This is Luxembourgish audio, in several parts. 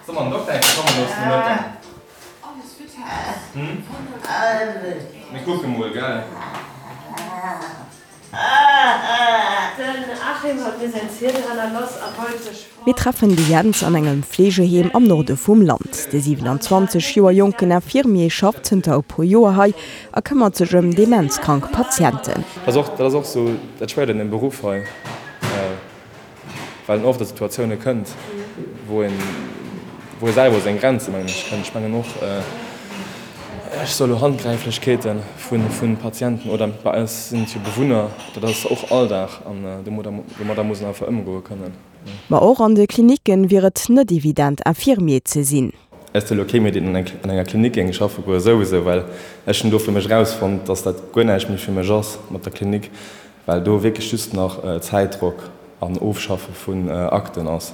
Soll mer den Dokter eng Kéier komme loossen de Mëtten? Hm? Mir kucke mol, gell? Den Achim hat mir säin Ziedel hannerloss a wollt sech fort. Mir treffen de Jens an engem Fleegeheem am Norde vum Land. De 27 Joer jonken Infirmier schafft zënter e puer Joer hei a këmmert sech ëm demenzkrank Patienten. Dat ass och sou dat Schwéiert un dem Beruff hei, well en oft a Situatioune kënnt, wou een, wou ee selwer u seng Grenze mengen ech kënnt. Ech mengen och, ech soe lo Handgräiflechkeete vu Patienten oder bei eis sinn et jo Bewunner, dat ass och Alldag an domadder muss een einfach ëmgoe kënnen. Ma och an de Klinicken wier et net evident Infirmier ze sinn. Ech si lo kee méi deen an enger Klinik géing schaffe goe souwisou, well ech hunn do fir mech erausfonnt, dass dat guer näischt méi fir mech ass mat der Klinik, well do wierklech just nach Zäitdrock an Ofschaffe vun Akten ass.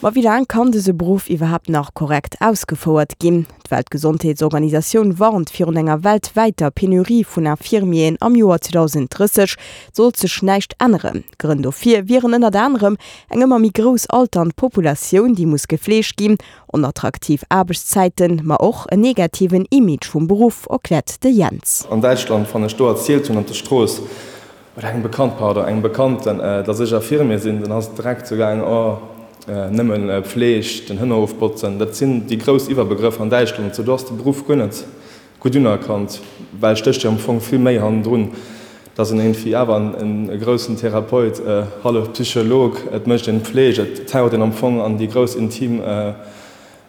Ma wéi laang kann dëse Beruff iwwerhaapt nach korrekt ausgefouert ginn? D'Weltgesondheetsorganisatioun warnt virun enger weltwäiter Penurie vun Infirmieren am Joer 2030, sollt sech näischt änneren. Grënn dofir wieren ënnert anerem eng ëmmer méi grouss alternd Populatioun, déi muss gefleegt ginn, Onattraktiv Aarbechtszäiten, ma och en negativen Image vum Beruff, erkläert de Jens. An Däitschland, wann ech do erzielt hunn op der Strooss, oder engem Bekannt, pardon, engem Bekannten, dass ech Infirmier sinn, dann ass et direkt sou gaangen, oh, nëmmen Pfleg, den Hënnerhof botzen. Dat sinn déi grouss Iwwerbegrëffer an Däitschland. Sou, do ass de Beruff guer net gutt unerkannt, well stécht jo am Fong vill méi hannendrun, dass en iergendwéi awer e groussen Therapeut, hallef Psycholog, et mécht een Pfleg, et taucht een am Fong an déi grouss intim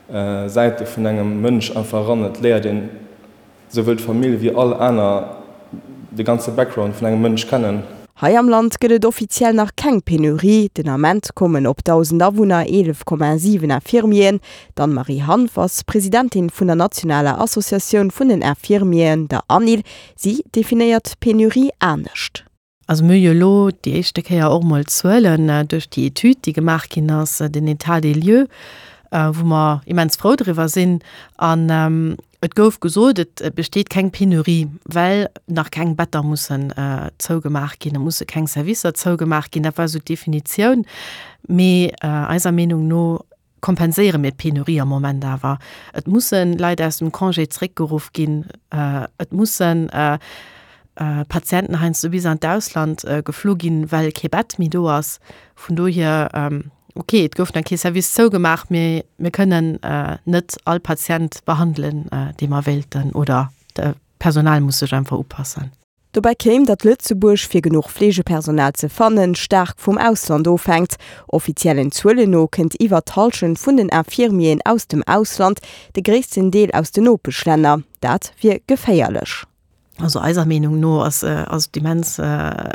Säite vun engem Mënsch einfach eran, et léiert een souwuel d'Famill wéi all aner, de ganze Background vun engem Mënsch kennen. Hei am Land gëtt et offiziell nach keng Penurie. Den Ament kommen op 1.000 Awunner 11,7 Infirmieren. D'Anne-Marie Hanff ass Presidentin vun der nationaler Associatioun vun den Infirmieren, der ANIL. Si definéiert d'Penurie anescht. Also mir hu jo elo déi éischte Kéier och emol Zuelen duerch déi Etüd, déi gemaach ginn ass, den État des lieux, wou mer immens frou driwwer sinn. An et gouf gesot, et besteet keng Penurie, well nach keng Better mussen zougemaach ginn, et musse keng Servicer zougemaach ginn. Dat war esou d'Definitioun. Mee eiser Meenung no kompenséiere mir d'Penurie am Moment awer. Et musse Leit aus dem Congé zréckgeruff ginn, et musse Patienten heiansdo bis an d'Ausland geflu ginn, well kee Bett méi do ass. Vun dohier, okay, et gouf nach kee Service zougemaach, mee mir kënnen net all Patient behandelen, dee mer wéilten, oder d'Personal muss sech einfach upassen. Dobäi kéim, datt Lëtzebuerg, fir genuch Fleegepersonal ze fannen, staark vum Ausland ofhänkt. Offiziellen Zuelen no kënnt iwwer d'Hallschent vun den Infirmieren aus dem Ausland, de gréissten Deel aus den Nopeschlänner. Dat wier geféierlech. Also eiser Meenung no ass et immens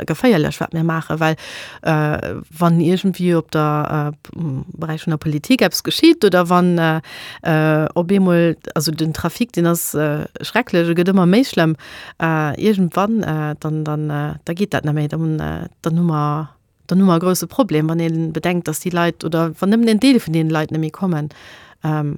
geféierlech, wat mir maachen, well wann iergendwéi op der Beräich vun der Politik eppes geschitt oder wann op eemol, also den Trafic, deen ass schrecklech, e gëtt ëmmer méi schlëmm, iergendwann, dann, dann, da geet dat net méi, dann, dann hu mer, dann hu mer e grouse Problem, wann ee bedenkt, datt déi Leit oder wann nëmmen en Deel vun deene Leit net méi kommen an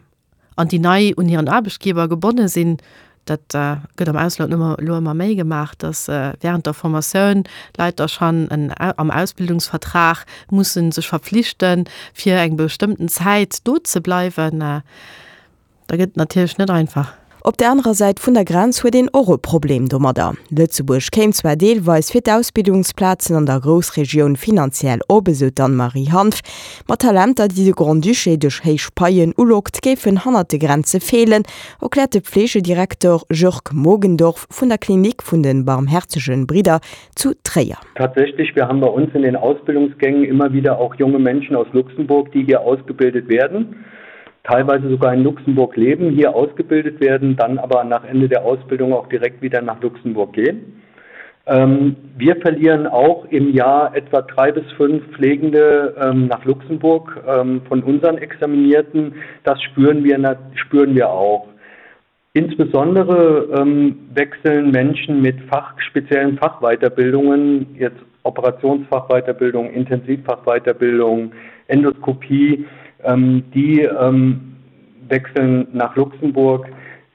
déi nei un hiren Aarbechtgeber gebonne sinn. Dat gëtt am Ausland elo elo ëmmer méi gemaach, datt während der Formatioun Leit da schonn en am Ausbildungsvertrag musse sech verpflichten, fir eng bestëmmten Zäit do ze bleiwen. Da gëtt et natierlech net einfach. Op der anerer Säit vun der Grenz huet een och e Problem domadder. Lëtzebuerg kéim zwar deelweis fir d'Ausbildungsplazen an der Groussregioun finanziell op, esou d'Anne-Marie Hanff, ma Talenter, déi de Grand-Duché duerch héich Paien ulockt, géifen hannert de Grenze feelen, erkläert de Pflegedirektor Jörg Mogendorf vun der Klinik vun de Barmherzegen Bridder zu Tréier. Tatsächlich, wir haben bei uns in den Ausbildungsgängen immer wieder auch junge Menschen aus Luxemburg, die hier ausgebildet werden. teilweise sogar in Luxemburg leben, hier ausgebildet werden, dann aber nach Ende der Ausbildung auch direkt wieder nach Luxemburg gehen. Ähm, wir verlieren auch im Jahr etwa drei bis fünf Pflegende ähm, nach Luxemburg ähm, von unseren Examinierten. Das spüren wir, spüren wir auch. Insbesondere ähm, wechseln Menschen mit Fach, speziellen Fachweiterbildungen, jetzt Operationsfachweiterbildung, Intensivfachweiterbildung, Endoskopie, ähm, die ähm, wechseln nach Luxemburg.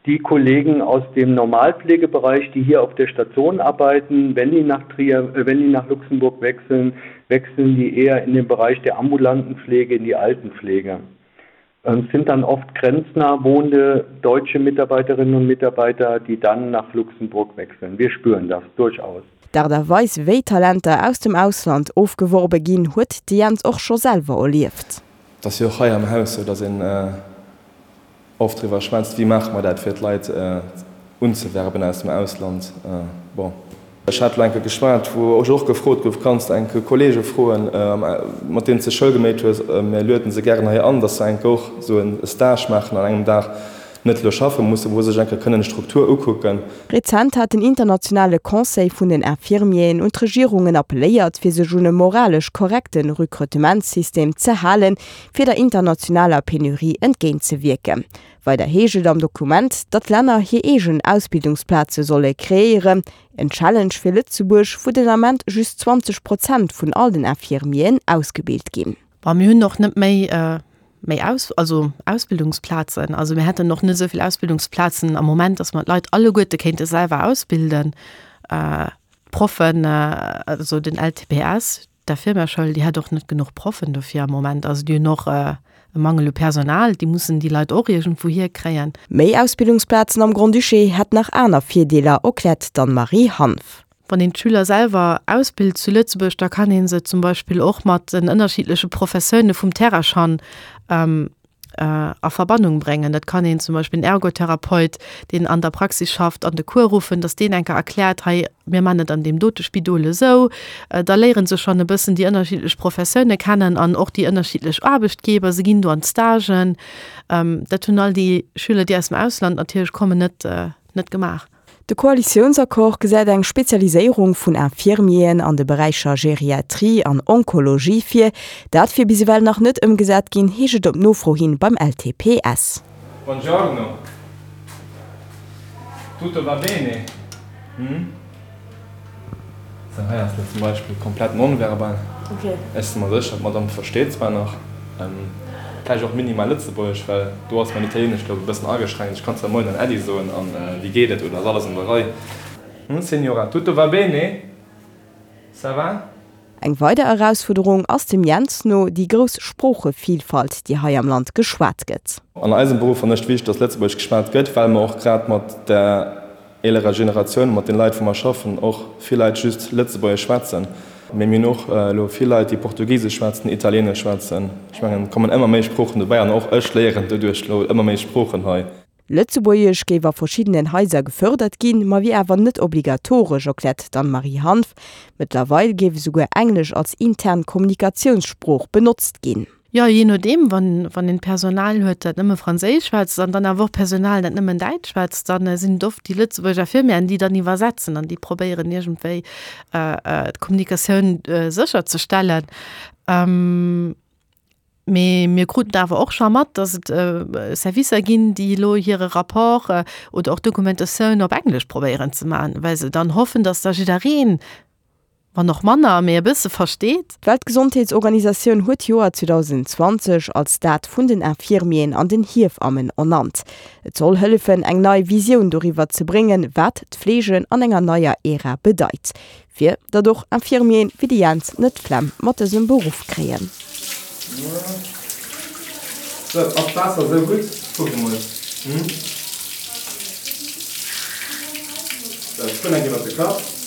Die Kollegen aus dem Normalpflegebereich, die hier auf der Station arbeiten, wenn die nach Trier, äh, wenn die nach Luxemburg wechseln, wechseln die eher in den Bereich der ambulanten Pflege, in die Altenpflege. Ähm, es sind dann oft grenznah wohnende deutsche Mitarbeiterinnen und Mitarbeiter, die dann nach Luxemburg wechseln. Wir spüren das durchaus. D'Aart a Weis, wéi Talenter aus dem Ausland ofgeworbe ginn, huet de Jens och scho selwer erlieft. Et ass jo och hei am Haus sou, datt een oft driwwer schwätzt, wéi maache mer dat, fir d'Leit unzewerben aus dem Ausland. Bon, ech hat elo eng Kéier geschwat, wou ech och gefrot gouf, Kanns de eng Kéier Kollege froen, mat deenen s de Schoul geméit hues, mir lueden se gären hei an, datt se eng Kéier och esou e Stage maachen an engem Dag, net elo schaffe mussen, wou se sech eng Kéier kënnen d'Struktur ukucken. Rezent hat den internationale Conseil vun den Infirmieren un d'Regierungen appelléiert, fir sech un e moralesch korrekte Rekrutementssystem ze halen, fir der internationaler Penurie entgéintzewierken. Weider heescht et am Dokument, datt d'Länner hir eegen Ausbildungsplaze solle kreéieren. En Challenge fir Lëtzebuerg, wou den Ament just 20 Prozent vun all den Infirmieren ausgebilt ginn. Bon, mir hunn och net méi méi Aus, also Ausbildungsplazen. Also mir hätten och net esou vill Ausbildungsplazen am Moment, datt mer d'Leit alleguerte kéinte selwer ausbilden. D'Proffen, also den LTPS, d'Infirmièreschoul, déi hätt och net genuch Proffen dofir am Moment. Also déi hunn och e Mangel u Personal, déi mussen déi Leit och iergendwou hierkréien. Méi Ausbildungsplazen am Grand-Duché hätt nach aner Virdeeler, erkläert d'Anne-Marie Hanff. Wann een d'Schüler selwer ausbilt zu Lëtzebuerg, da kann ee se zum Beispill och mat den ënnerschiddleche Professioune vum Terraschan a Verbannung bréngen. Dat kann een zum Beispill en Ergotherapeut, deen an der Praxis schafft, an de Cours ruffen, datt deen eng Kéier erkläert, hei mir man et an deem dote Spidol esou. Da léiere se schonn e bëssen déi ënnerschiddlech Professioune kennen an och déi ënnerschiddlech Aarbechtgeber. Se ginn do an d'Stagen. Dat hunn all déi Schüler, déi aus dem Ausland natierlech kommen, net net gemaach. De Koalitiounsaccord gesäit eng Spezialiséierung vun Infirmieren an de Beräicher Geriatrie an Onkologie vir. Dat wier bis ewell nach net ëmgesat ginn, heescht et op Nofro hin beim LTPS. Buongiorno. Tutto va bene? Hm? Sou, hei ass lo zum Beispill komplett nonverbal. Ech si mer sécher, d'Madame versteet zwar nach vläicht och minimal Lëtzebuergesch, well do ass mäin Italieenesch, glaub e bëssen ageschränkt. Ech kann zwar Moien an Äddi soen an wéi geet et oder ass alles an der Rei. Hm, Signora, tutto va bene? Ça va? Eng weider Erausfuerderung ass dem Jens no déi grouss Sproochevilfalt, déi hei am Land geschwat gëtt. An eisem Beruff fannen ech et wichteg, dass Lëtzebuergesch geschwat gëtt, well mer och grad mat der eelerer Generatioun, mat den Leit wou mer schaffen, och vill Leit just Lëtzebuergesch schwätzen. Mee mir hunn och elo vill Leit, déi Portugisesch schwätzen, Italieenesch schwätzen. Ech mengen, et kommen ëmmer méi Sproochen dobäi an och ech léieren doduerch elo ëmmer méi Sproochen hei. Lëtzebuergesch géif a verschiddenen Haiser gefërdert ginn, ma wier awer net obligatoresch, erkläert d'Anne-Marie Hanff. Mëttlerweil géif esouguer Englesch als intern Kommunikatiounssprooch benotzt ginn. Jo, jee nodeem, wann, wann een Personal huet, dat nëmme Franséisch schwätzt an dann awer och Personal, dat nëmmen Däitsch schwätzt, dann sinn et oft déi Lëtzebuerger Infirmieren, déi dann iwwersetzen an déi probéieren iergendwéi d'Kommunikatioun sécherzestellen. Mee mir kruten awer och scho mat, datt et Servicer ginn, déi elo hire Rapport oder och Dokumentatioun op Englesch probéieren ze maachen, well se dann hoffen, datt da jiddereen, wann och manner, mee e bësse versteet. D'Weltgesondheetsorganisatioun huet d'Joer 2020 als dat vun den Infirmieren an den Hiefammen ernannt. Et soll hëllefen, eng nei Visioun doriwwer ze bréngen, wat d'Fleege an enger neier Ära bedeit. Fir datt och Infirmieren wéi de Jens net d'Flemm mat dësem Beruff kréien. Sou, ass d'Waasser sou gutt? Kuck emol. Hm? Sou, ech spullen eng Kéier iwwer de Kapp.